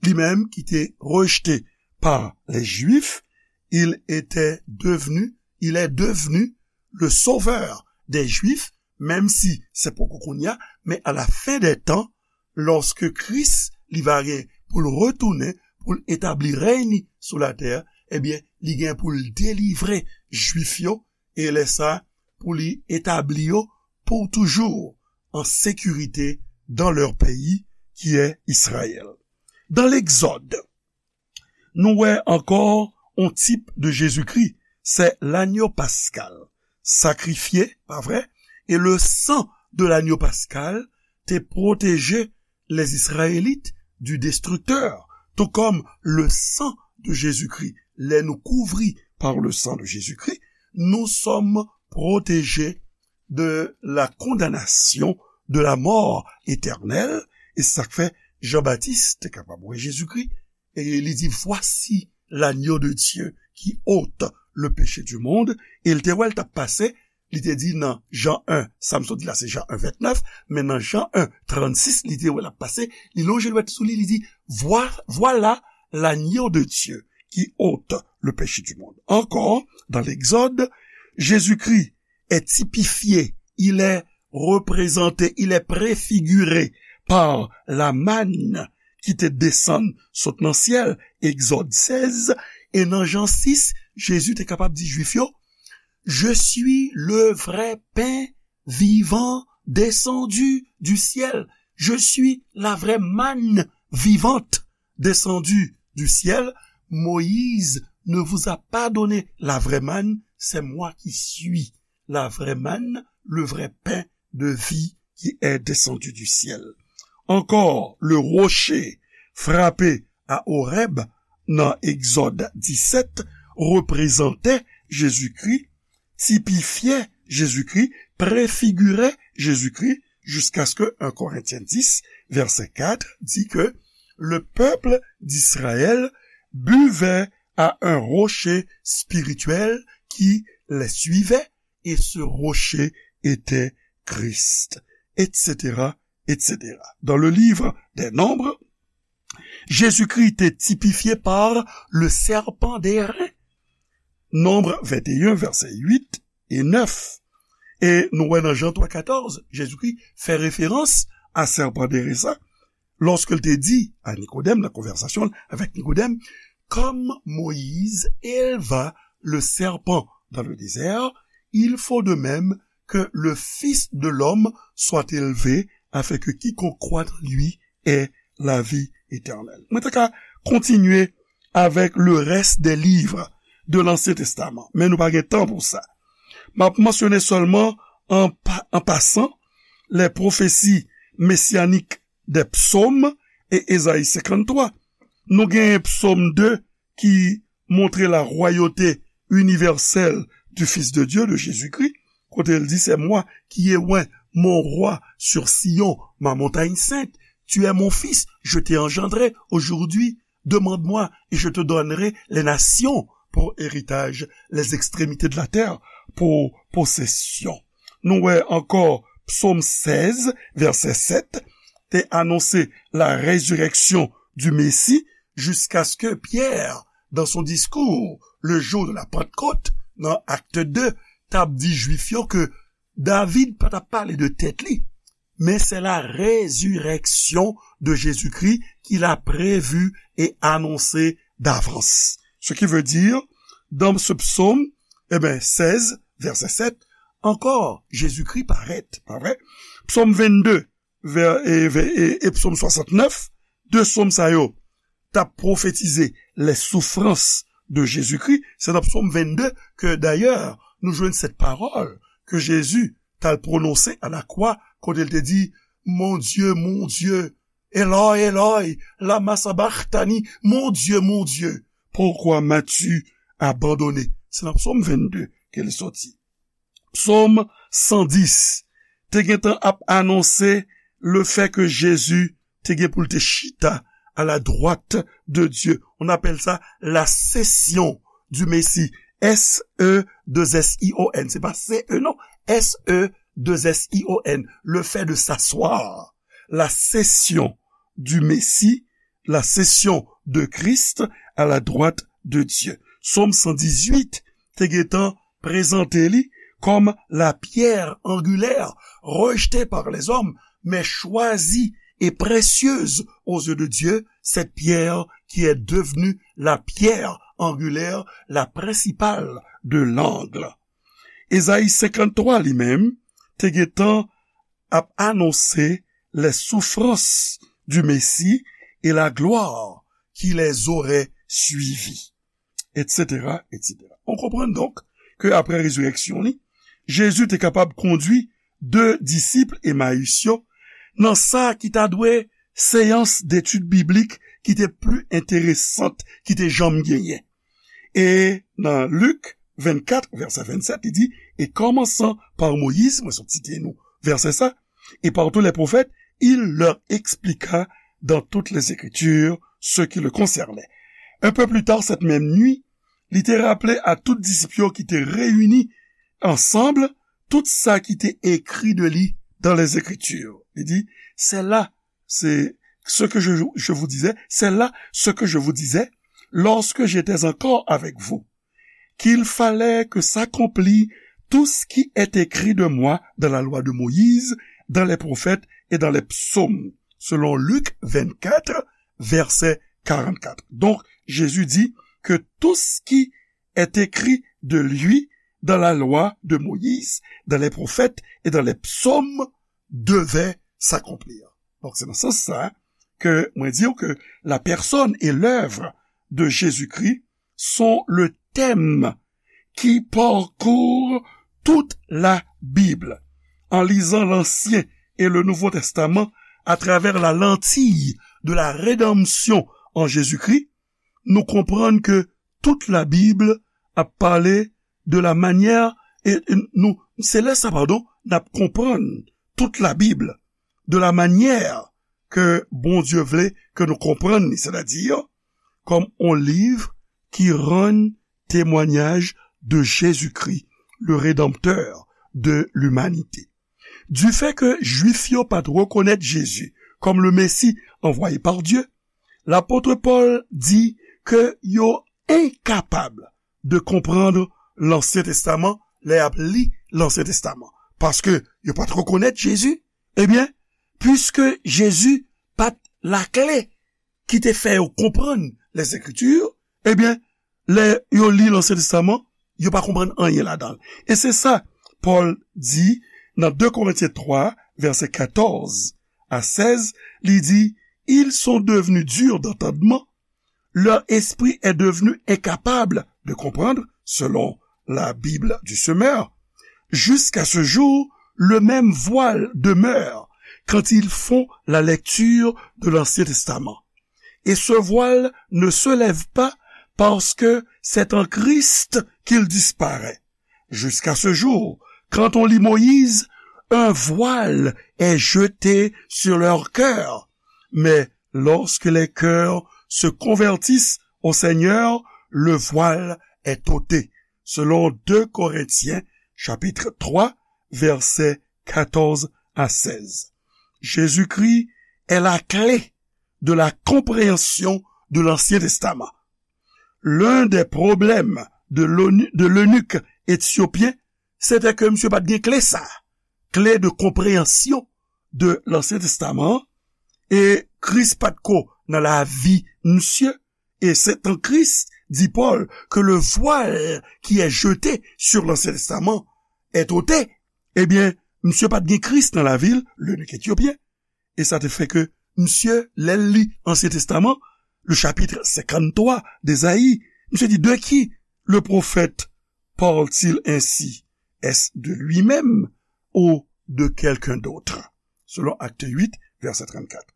li menm ki te rejte pa les Juifs, il était devenu, il est devenu le sauveur des Juifs, menm si se poko kounye a, men à la fin des temps, lòske Kris, li va gen pou l retounen, pou l etabli rèy ni sou latè, ebyen, li gen pou l delivre Jwif yo, e lè sa, pou li etabli yo pou toujou an sekirite dans leur pays, qui est Israël. Dans l'Exode, nou wè ankò yon tip de Jezikri, se lanyo paskal, sakrifye, pa vre? E le san de lanyo paskal te pwoteje les Israélites du destructeur, tout comme le sang de Jésus-Christ. Lè nou kouvri par le sang de Jésus-Christ, nous sommes protégés de la condamnation, de la mort éternelle. E sa k fè Jan Batis te kapab wè Jezikri, e li di, voici l'agneau de Dieu qui ôte le péché du monde. E l te wè l t ap pase, li te di nan Jan en, sa m sot di la se Jan en vennèf, men nan Jan en trannsis, li te wè l ap pase, li lonje dwèt sou li, li di, Voi- voilà l'agneau de Dieu qui ôte le péché du monde. Encore, dans l'Exode, Jésus-Christ est typifié, il est représenté, il est préfiguré par la manne ki te desann sot nan syèl, Egzòd sèz, e nan Jan sis, Jezi te kapab di Jwif yo, Je suis le vrai pain vivant descendu du ciel. Je suis la vraie manne vivante descendue du ciel. Moïse ne vous a pas donné la vraie manne, c'est moi qui suis la vraie manne, le vrai pain de vie qui est descendu du ciel. Encore, le rocher frappé à Horeb, nan Egzòd disèt, reprezante Jezikri, tipifye Jezikri, prefigire Jezikri, jiskaske un Korentyen dis, vèsè kat, di ke le peuple d'Israël buvait à un rocher spirituel qui les suivait, et ce rocher était Christ, et cetera, et cetera. Dans le livre des Nombres, Jésus-Christ est typifié par le serpent d'airain. Nombre vingt et un, verset huit et neuf. E nou wè nan Jan twa katòz, Jezikri fè referans a sèpan dere sa, lòske l te di a Nikodèm, nan konvèsasyon l avèk Nikodèm, Comme Moïse éleva le serpent dans le désert, il faut de même que le Fils de l'homme soit élevé, afin que quiconque croit en lui ait la vie éternelle. Mwen ta ka kontinye avèk le reste des livres de l'Ancien Testament, men nou pa gen tan pou sa. M ap mansyone sèlman an pa- an pasan les prophéties messianiques des psaumes et Ésaïe cinquante-trois. Nou genyen psòm de ki montre la royauté universelle du Fils de Dieu, de Jésus-Christ, kote l di, C'est moi qui ai oint mon roi sur Sion, ma montagne sainte. Tu es mon fils, je t'ai engendré aujourd'hui. Demande-moi et je te donnerai les nations pour héritage, les extrémités de la terre pour possession. Nou wè ankò Psaume seize, verset sept, te anonse la résurrection du Messie, jusqu'à ce que Pierre, dans son discours, le jour de la Pentecôte, nan Acte deux, t ap di Jwif yo ke David pa t ap pale de tèt li, mais c'est la résurrection de Jésus-Christ qu'il a prévue et annoncée d'avance. Ce qui veut dire, dans ce psaume, eh ben, seize, verset sept, encore, Jésus-Christ paraît, pas vrai? Psaume vingt-deux, vè- e, vè- e, e Psaume soixante-neuf, de psaume sa yo, t ap pwofetize les souffrances de Jésus-Christ. Se nan Psaume vingt-deux que, d'ailleurs, nou jwenn cette parole que Jésus t al pwononse à la croix, kote l te di, Mon Dieu, mon Dieu, Eloi, Eloi, lama sabachthani, Mon Dieu, mon Dieu, pourquoi m'as-tu abandonné? Se nan Psaume vingt-deux ke li soti. Psaume cent dix te gentan ap anonse le fait que Jésus te gen pou l te chita à la droite de Dieu. On appelle ça la session du Messie. S E deux S I O N. Se pa C E non. S E deux S I O N. Le fait de s'asseoir. La session du Messie, la session de Christ à la droite de Dieu. Psaume cent dix-huit te gentan prezante li comme la pierre angulaire, rejetée par les hommes, mais choisie et précieuse aux yeux de Dieu, cette pierre qui est devenue la pierre angulaire, la principale de l'angle. Ezayi senkanntwa li menm te gentan ap anonse les souffrances du Messie et la gloire qui les aurait suivies, et cetera, et cetera. On konprann donk ke apre rezirèksyon li, Jezi te kapab kondui de disip Emayis yo nan sa ki ta dwe seyans detid biblik ki te pli enteresant ki te janm genyen. E nan Lik vennkat, vèsè vennsèt, li di, et commençant par Moïse, mwen sot site nou vèsè sa, et par tous les prophètes, il leur expliqua dans toutes les Écritures ce qui le concernait. Un peu plus tard cette même nuit, li te raple a tout disip yo ki te reyini ansanm tout sa ki te ekri de li dans les Écritures. Li di, c'est là, c'est ce que je, je vous disais, c'est là ce que je vous disais lorsque j'étais encore avec vous, qu'il fallait que s'accomplît tout ce qui est écrit de moi dans la loi de Moïse, dans les prophètes et dans les psaumes, selon Luc vingt-quatre, verset quarante-quatre. Donc, Jésus dit que tout ce qui est écrit de lui dans la loi de Moïse, dans les prophètes et dans les psaumes devait s'accomplir. Donc, c'est dans ce sens-là que moi dire que la personne et l'œuvre de Jésus-Christ sont le thème qui parcourt toute la Bible. En lisant l'Ancien et le Nouveau Testament à travers la lentille de la rédemption en Jésus-Christ, nou konprann ke tout Labib ap pale de la manyè, e, e nou, se lè sa, padon, n ap konprann tout Labib de la manyè ke Bondye vle ke nou konprann li, sètadi kòm on liv ki rann temwanyaj de Jezikri, le Rédempteur de l'humanité. Du fait que Jwif yo pa t rekonèt Jezi kòm le Messie envoyé par Dieu, lapot Pòl di ke yo enkapab de konprann Lansyen Testaman lè y ap li Lansyen Testaman, paske yo pa t rekonèt Jezi. Ebyen, piske Jezi pa t lakle ki te fè yo konprann Lèzekriti, ebyen, lè yo li Lansyen Testaman, yo pa konprann anyen ladan l. E se sa Pòl di nan de Korentyen twa, vèsè katòz a sèz, li di, ils sont devenus durs d'entendement, leur esprit est devenu incapable de comprendre, selon la Bible du semeur. Jusqu'à ce jour, le même voile demeure quand ils font la lecture de l'Ancien Testament. Et ce voile ne se lève pas parce que c'est en Christ qu'il disparaît. Jusqu'à ce jour, quand on lit Moïse, un voile est jeté sur leur cœur. Mais lorsque les cœurs se convertissent au Seigneur, le voile est ôté. Selon de Korentyen, chapit twa, vèsè katòz a sèz. Jésus-Christ est la clé de la compréhension de l'Ancien Testament. L'un des problèmes de l'onu-, de l'eunuque éthiopien, c'était que monsieur pa t gen kle sa, clé de compréhension de l'Ancien Testament, e Kris pa t ko nan lavi misye, et c'est en Christ, dit Paul, que le voile qui est jeté sur l'Ancien Testament est ôté. Ebyen, misye pa t gen Kris nan lavi l, l'eunuque éthiopien. E sa te fè ke misye, lè l li Ansyen Testaman, le chapitre cinquante-trois d'Ésaïe, misye di, de qui le prophète parle-t-il ainsi? Est-ce de lui-même ou de quelqu'un d'autre? Selon Acte huit, verset trente-quatre.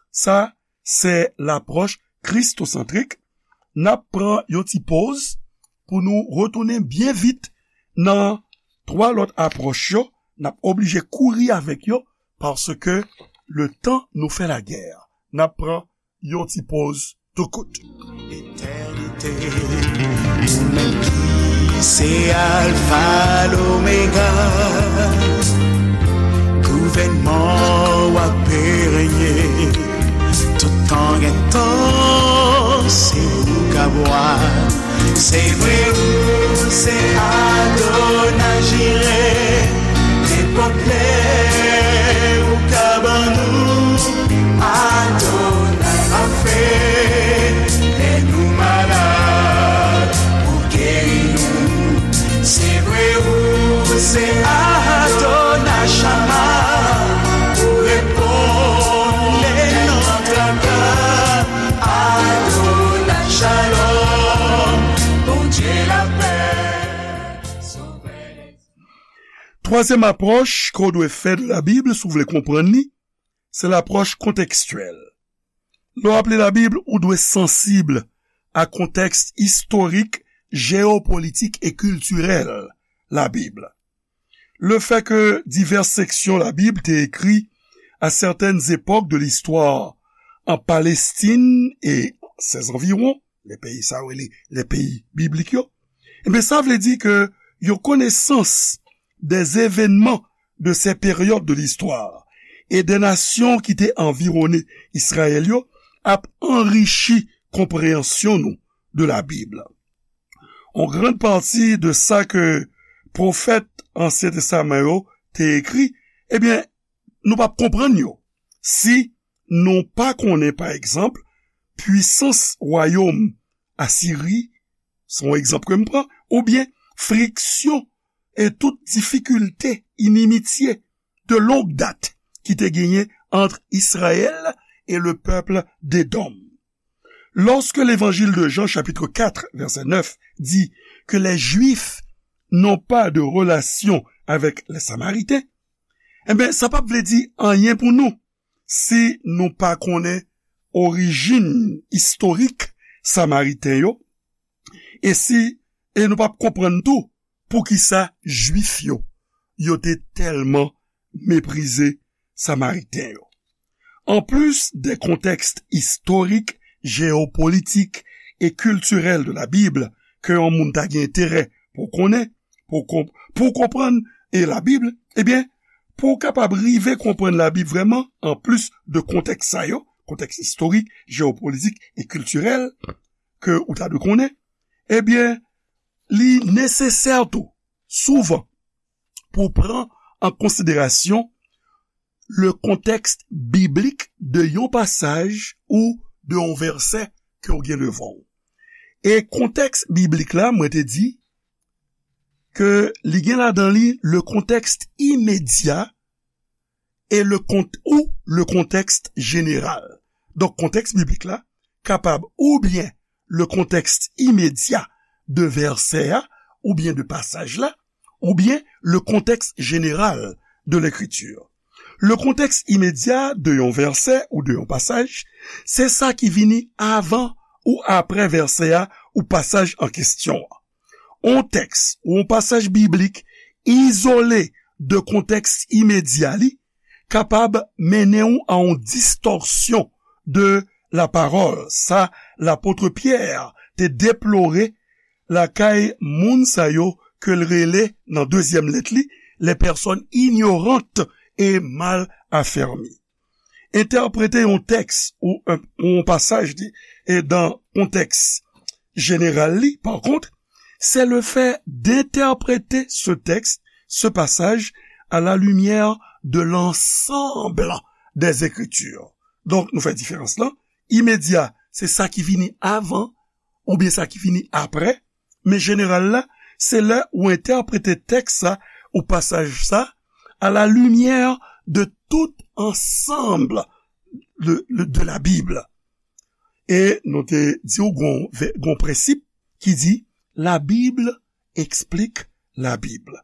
Sa, se lapwòch kristosantrik. N ap pran yon ti poz pou nou retounen byen vit nan twa lòt apwòch yo. N ap oblije kouri avèk yo paske le tan nou fè lagè. N ap pran yon ti poz tou kout. Etènite, ou menm ki se Alfa, Lomega, gouvènman w ap renye, tout tan gen tan, se ou k ap wa. Se vre, ou se Adonai Jire, nenpòt lè ou ka ban nou Twazyèm apwòch ke w dwe fè de Labib, si w vle konprann li, se lapwòch kontekstyèl. Lè w ap li Labib, ou dwe sansib a kontèks istorik, jeyopolitik e kiltirèl Labib. Le fait que diverses sections la Bible te écrit à certaines époques de l'histoire en Palestine et ses environs, les pays sa yo rele les pays bibliques yo, ebyen, sa vle di ke yon konesans des événements de ces périodes de l'histoire et des nations ki te anviwone Izrayèl yo ap anrichi konpreyansyon nou de la Bib. Yon gran pati de sa ke pwofèt Ansyen Testaman yo te ekri, ebyen, nou p ap konprann yo si nou pa konnen, pa egzanp, pwisans wayòm Asiri, se yon egzanp ke m pran, oubyen friksyon e tout difikilte, inimitye de longue date ki te genyen ant Izrayèl e le peuple d'Edom. Lorsque l'évangile de Jean, chapitre quatre, verset neuf, dit que les Juifs n'ont pas de relation avec les Samaritains, ebyen, sa p ap vle di anyen pou nou si nou pa konnen orijin istorik Samariten yo, e si, e nou p ap konprann tou poukisa Jwif yo, yo te tèlman meprize Samariten yo. Anplis de kontèks istorik, jeyopolitik e kiltirèl de la Bib ke yon moun ta gen enterè pou konnen, pou konp-, pou konprann e la Bib, ebyen, pou w kapab rive konprann la Bib vrèman, anplis de kontèks sa yo, kontèks istorik, jeyopolitik e kiltirèl ke ou ta dwe konnen, ebyen, li nesesè tou, souvan, pou w pran an konsiderasyon le contexte biblique de yon pasaj ou de yon vèsè ke w gen devan w. E kontèks biblik la, mwen te di ke li gen ladan li le contexte immédiat et le cont-, ou le contexte général. Donk, kontèks biblik la kapab oubyen le contexte immédiat de vèsè a, oubyen de pasaj la, oubyen le contexte général de l'écriture. Le contèks imedya de yon vèsè ou de yon pasaj, se sa ki vini avan ou aprè vèsè a ou pasaj an kesyon an. On tèks ou on pasaj biblik izole de kontèks imedya li kapab mennen w a on distòsyon de la parole, sa lapot Pyè te deplore lakay moun sa yo ke l rele nan dezyèm lèt li, les personnes ignorantes et mal affermies. Entèprete yon tèks ou yon, yon pasaj li, e dan kontèks jeneral li, par contre, c'est le fait d'interpréter ce texte, ce passage, à la lumière de l'ensemble des Écritures. Donk, nou fè diferans lan. Imedya, se sa ki vini avan, oubyen sa ki vini aprè. Men jeneral la, se lè ou entèprete tèks sa, ou pasaj sa, à la lumière de tout ensemble de, de, de la Bible. E nou te di w gon, gon prensip ki di, la Bible explique la Bible.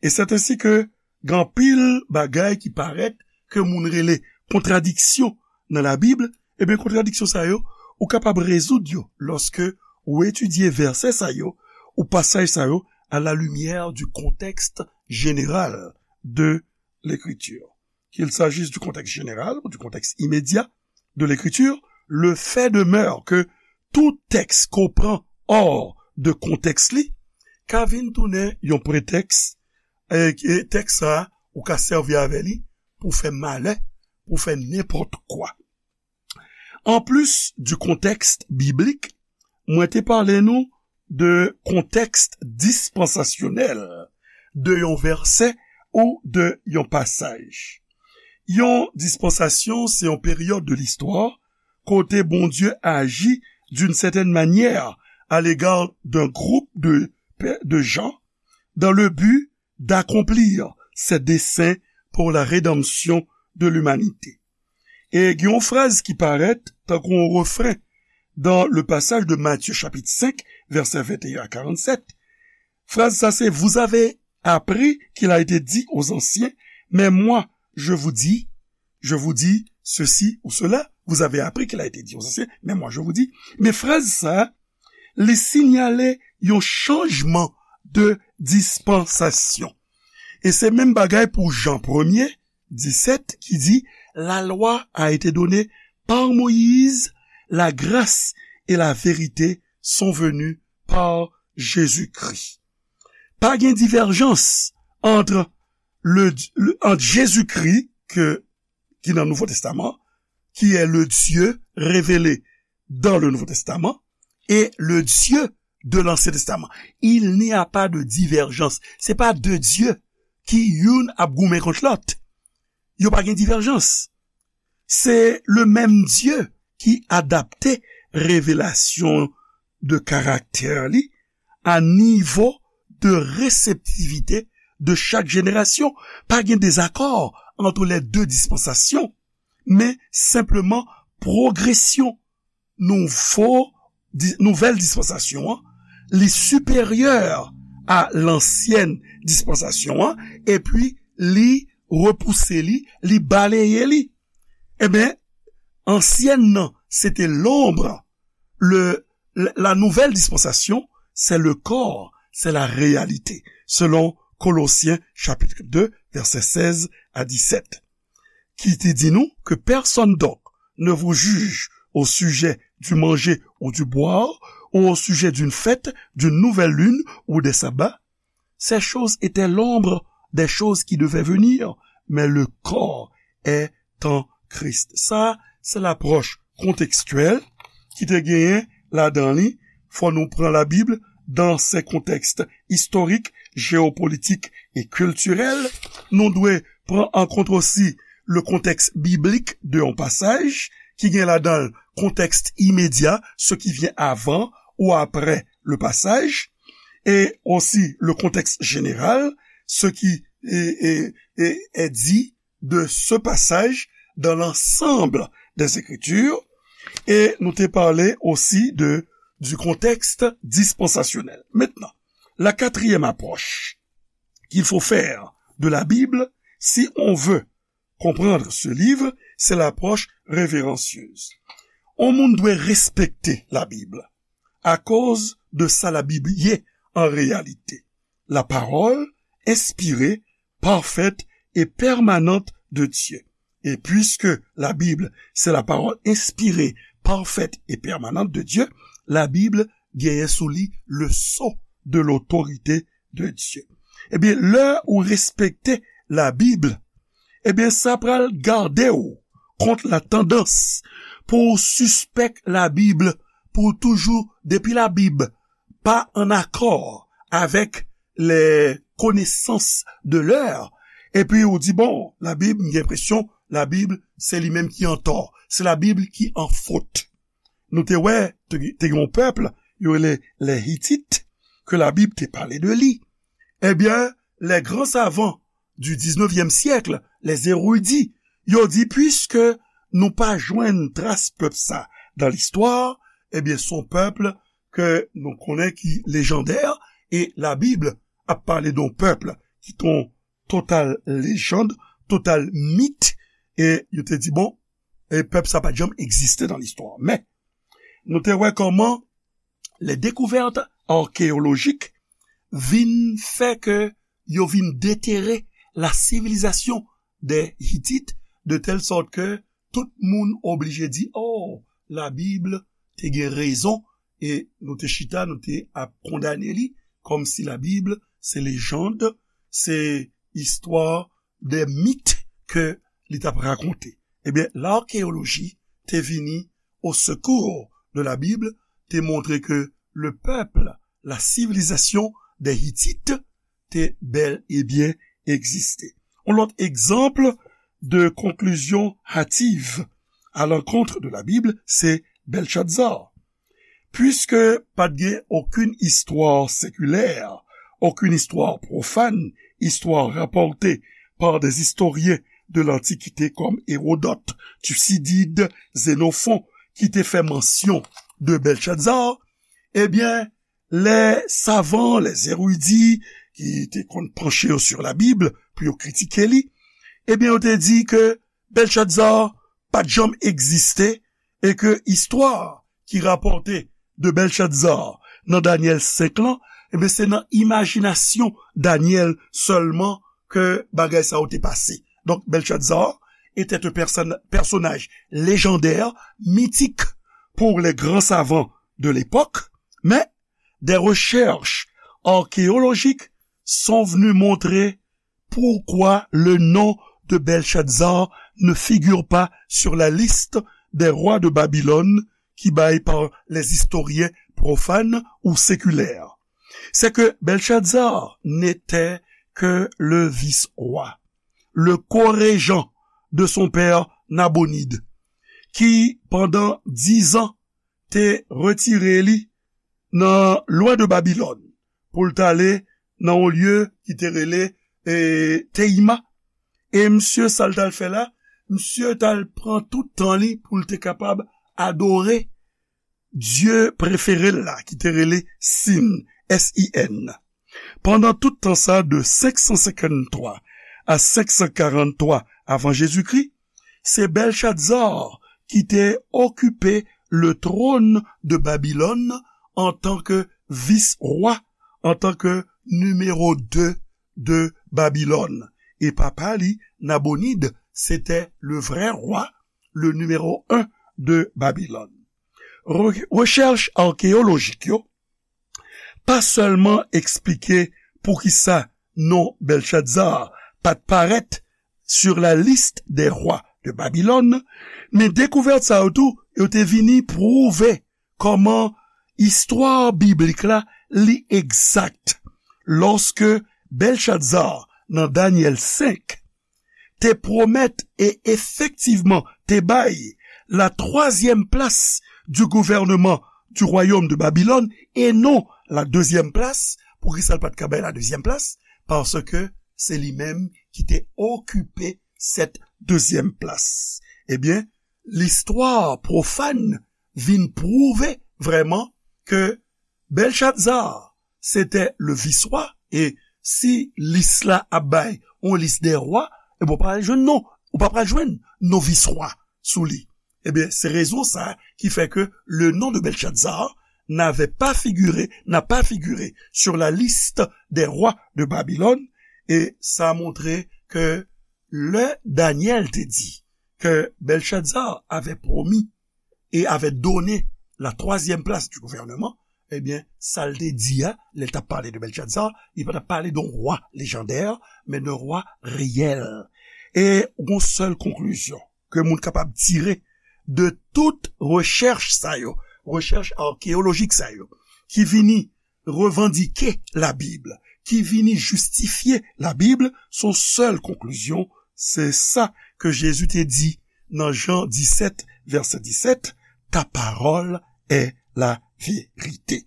E c'est ainsi que gen anpil bagay ki parèt ke moun rele kontradiksyon nan la Bib, ebyen, kontradiksyon sa yo, ou kapab rezoud yo lòske ou etidye vèsè sa yo, ou pasaj sa yo, à la lumière du contexte général de l'écriture. Qu'il s'agisse du contexte général ou du contexte immédiat de l'écriture, le fait demeure que tout texte qu'on prend hors de contexte li, ka vin tounen yon pretèks, e, e tèks sa a, ou ka sèvi avè li pou fè malè, pou fè nenpòt kwa. Anplis du contexte biblique, mwen te pale nou de kontèks dispansasyonèl de yon vèsè ou de yon pasaj. Yon dispansasyon, se yon peryòd de listwa kote Bondye aji d'une certaine manière à l'égard d'un groupe de, de gens dans le but d'accomplir ses desseins pour la rédemption de l'humanité. E gen yon fraz ki parèt tankou yon refren dans le passage de Matthieu chapitre cinq, verset vingt et un à quarante-sept. Fraz sa se, vous avez appris qu'il a été dit aux anciens, mais moi, je vous dis, je vous dis ceci ou cela, vous avez appris qu'il a été dit aux anciens, mais moi, je vous dis. Men fraz sa, li sinyale yon chanjman de dispansasyon. E se menm bagay pou Jan premye, disèt, ki di, la loi a été donnée par Moïse, la grâce et la vérité sont venues par Jésus-Christ. Pa gen divèjans ant le, le, ant Jezikri, ke, ki nan Nouvo Testaman, qui est le Dieu révélé dans le Nouveau Testament, et le Dieu de l'Ancien Testament. Il n'y a pas de divergence. Se pa de Dye ki youn ap goumen kont lòt. Yo pa gen divèjans. Se le menm Dye ki adapte revelasyon de karaktè li a nivo de reseptivite de chak jenerasyon. Pa gen dezakò ant les deux dispensations, men senpleman pwogresyon nouvo, di, nouvèl dispansasyon an, li siperyè a lansyèn dispansasyon an, epi li repouse li, li baleye li. Ebyen, ansyèn nan, se te lonb. Le, la, la nouvelle dispensation, c'est le corps, c'est la réalité, selon Colossiens chapitre deux, versets seize à dix-sept, ki te di nou que personne donc ne vous juge au sujet du manger ou du boire, ou au sujet d'une fête, d'une nouvelle lune ou des sabbats. Ces choses étaient l'ombre des choses qui devaient venir, mais le corps est en Christ. Sa, se lapwòch kontekstyèl ki te genyen ladan li. Fò nou pran Labib dans ses contextes historiques, géopolitiques et culturels. Nou dwe pran an kont osi le contexte biblique de yon pasaj, ki gen ladan l kontèks imedya, ce qui vient avant ou après le passage, et aussi le contexte général, ce qui est, est, est, est dit de ce passage dans l'ensemble des Écritures, et nou te pale osi de, du contexte dispensasyonèl. Maintenant, la quatrième approche qu'il faut faire de la Bible, si on veut comprendre ce livre, c'est l'approche révérencieuse. On moun dwe respekte Labib akoz de sa Labib ye an reyalite. La parole inspirée, parfaite et permanente de Dieu. Et puisque la Bible, c'est la parole inspirée, parfaite et permanente de Dieu, Labib genyen sou li le sceau de l'autorité de Dieu. Ebyen, lè ou respekte Labib, ebyen, sa pral gade w kont la tandans pou w sispèk Labib, pou w toujou, depi Labib pa an akò avèk les connaissances de l'heure, epi ou di, bon, Labib, m gen enpresyon, Labib, se li menm ki antò. Se Labib ki an fot. Nou te wè, te, te gen yon pèp, yo rele les Hittites, ke Labib te pale de li. Ebyen, les grands savants du dix-neuvième siècle, les érudits, yo di, puiske nou pa jwenn tras pèp sa dan listwa, ebyen, se yon pèp ke nou konnen ki lejandè, e Labib ap pale de yon pèp ki te yon total lejand, total mit, e yo te di, bon, e pèp sa pa t janm egziste dan listwa. Men, nou te wè kòman les découvertes archéologiques vin fè ke yo vin detere la civilisation des Hittites, de telle sorte que tout moun oblije di, oh, Labib te gen rezon, e nou te chita, nou te ap kondane li, kòmsi Labib se lejand, se istwa de mit ke li t ap rakonte. Ebyen, l'archéologie te vini au secours de la Bible, te montre ke le peuple, la civilisation des Hittites, te bèl e byen egziste. Yon lòt egzanp de conclusion hâtive à l'encontre de la Bible, se Belshazzar. Puiske pa t gen okenn istwa sekilè, okenn istwa pwofàn, istwa rapòte par des historiens de l'Antiquité comme Hérodote, Thucydide, Xénophon, ki te fè mansyon de Belshazzar, ebyen, les savants, les érudits, ki te konn panche yo sur la Bible pou yo kritike li, ebyen, yo te di ke Bèlchadza pa t janm egziste e ke istwa ki rapòte de Bèlchadza nan Danyèl senk lan, ebyen, se nan imajinasyon Danyèl sèlman ke bagay sa yo te pase. Donk, Bèlchadza était un person- personnage légendaire, mythique pour les grands savants de l'époque, mais des recherches archéologiques sont venues montrer pourquoi le nom de Belshazzar ne figure pas sur la liste des rois de Babylone qui bay par les historiens profanes ou séculaires. C'est que Belshazzar n'était que le vice-roi, le co-régent de son père Nabonide, ki pandan dizan te retire li nan lwen de Babilòn pou l t ale nan yon lye ki te rele e, Teima. E misye, sa l t al fè la, misye t al pran tout tan li pou l te kapab adore dye prefere l la, ki te rele Sin, S I N. Pandan tout tan sa, de senk san senkanntwa a senk san karanntwa avan Jezikri, se Belshazzar ki te okipe le trône de Babylone antanke vis-rwa, antanke nimewo de de Babilòn. E papa li, Nabonid, se te le vrè rwa, le nimewo en de Babilòn. Re- rechèch akeyolojik yo pa sèlman eksplike poukisa non Belshazzar pa t parèt sur la liste des rois de Babylone, men dekouvèt sa yo tou, yo te vini pwouve kòman istwa biblik la li egzak. Lòske Belshazzar nan Danyèl senk te pwomèt e efektivman te bay la twazyèm plas du gouvernement du royaume de Babylone e non la dezyèm plas. Poukisa l pa t ka bay la dezyèm plas? Paske se li menm ki te okipe sèt dezyèm plas. Ebyen, listwa pwofàn vin pwouve vrèman ke Belshazzar se te le vis-rwa, e si lis la ap bay yon lis de rwa, e bon, pa jwenn non, ou pa pral jwenn non vis-rwa sou li. Ebyen, se rezon sa ki fè ke le nom de Belshazzar n'avait pas figuré, n'a pas figuré sur la liste des rois de Babylone, et ça a montré que le Daniel te dit que Belshazzar avait promis et avait donné la troisième place du gouvernement, ebyen, sa l te di a, lè l t ap pale de Belshazzar, li pa t ap pale de yon rwa lejandè, men de rwa reyèl. E yon sèl konklizyon ke moun kapab tire de tout rechèch sa yo, rechèch akeyolojik sa yo, ki vini revandike Labib, ki vini jistifye Labib, son sèl konklizyon, se sa ke Jezi te di nan Jan disèt, vèsè disèt, ta parole est la vérité.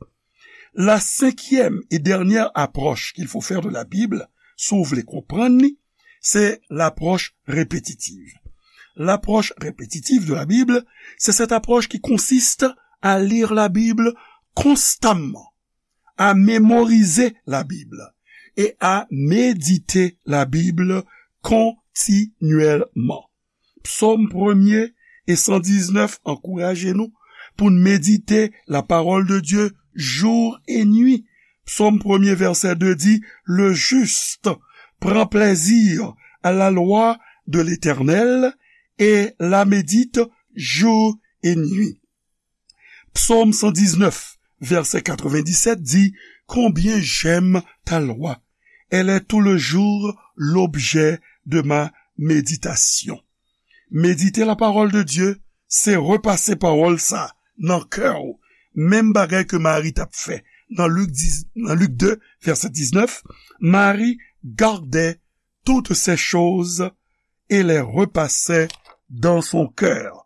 La cinquième et dernière approche qu'il faut faire de la Bible, si w vle konprann li, se lapwòch repetitiv. Lapwòch repetitiv de la Bible, c'est cette approche qui consiste à lire la Bible constamment, à mémoriser la Bible et à méditer la Bible continuellement. Psaume premier et cent dix-neuf ankouraje nou pou n medite la parole de Dieu jour et nuit. Psaume premier, verset deux dit, le juste prend plaisir à la loi de l'Éternel et la médite jour et nuit. Psaume cent dix-neuf, verset quatre-vingt-dix-sept dit, combien j'aime ta loi. Elle est tout le jour l'objet de ma méditation. Medite la parole de Dieu, se repase pawòl sa nan kè w. Menm bagay ke Mari t ap fè nan Lik dis, nan Lik de, vèsè diznèf, Marie gardait toutes ces choses et les repassait dans son cœur.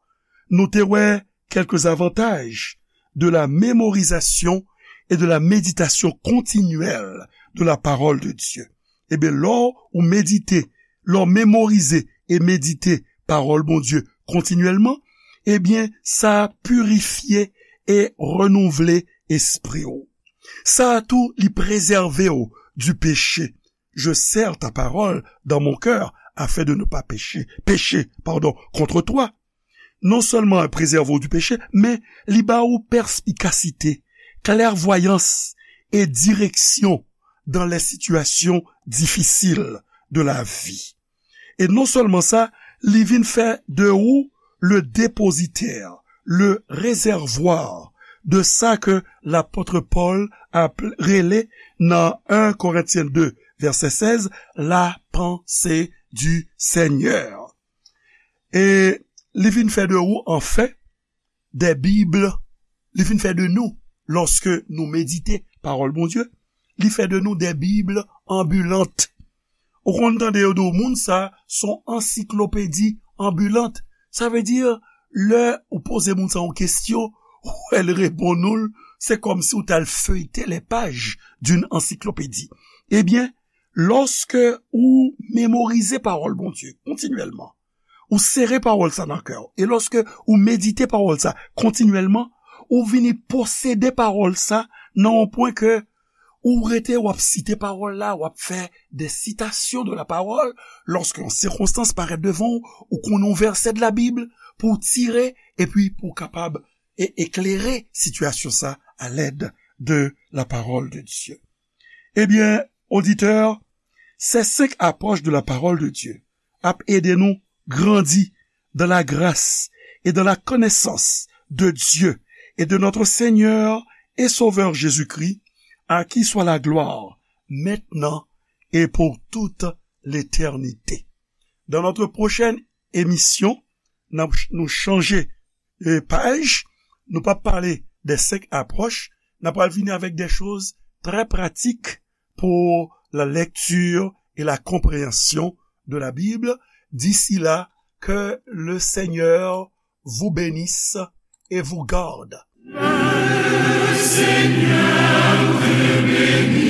Nou te wè quelques avantages de la mémorisation et de la méditation continuelle de la parole de Dieu. Ebyen, lè w medite, lè w memorize e medite pawòl Bondye kontinyèlman, ebyen, sa pirifye e renouvle espri w. Sa a tou, li prezève w du péché. Je serre ta parole dans mon cœur afin de ne pas pécher, pécher, pardon, contre toi. Non sèlman prezève w di peche, men li ba ou pèspikasite, klèvwayans e direksyon dans les situations difficiles de la vie. E non sèlman sa, li vin fè de ou le dépositaire, le réservoir de sa ke lapòt Pòl ap rele nan en Korentyen de, vèsè sèz, la pensée du Seigneur. E li vin fè de ou, anfen, des Bibles, li vin fè de nou, lòske nou medite pawòl Bondye, li fè de nou des Bibles ambulantes. Ou konn tande yo di w, moun sa, se yon ansiklopedi anbilant. Sa vle di, lè ou poze moun sa yon kesyon, ou wè l reponn ou l, se kòmsi ou t al feuilleter les pages d'une encyclopédie. Ebyen, lòske ou memorize pawòl Bondye kontinyèlman, ou sere pawòl sa nan kè w, e lòske ou medite pawòl sa kontinyèlman, ou vini posede pawòl sa nan yon pwen ke ou rete, w ap site pawòl la, w ap fè des citations de la parole, lòske yon sikonstans parèt devan w, ou konnen yon vèsè de la Bib pou w tire, epi pou w kapab e eklere sitiyasyon sa à l'aide de la parole de Dieu. Ebyen, oditè, ces cinq approches de la parole de Dieu ap ede nou grandi dans la grâce et dans la connaissance de Dieu et de notre Seigneur et Sauveur Jésus-Christ, à qui soit la gloire maintenant et pour toute l'éternité. Dans notre prochaine émission, n ap ch-, nou chanje, e, paj, nou p ap pale de senk apwòch, n ap pral vini avèk de choz trè pratik pour la lecture et la compréhension de la Bible. D'ici là, que le Seigneur vous bénisse et vous garde. Le Seigneur te bénisse.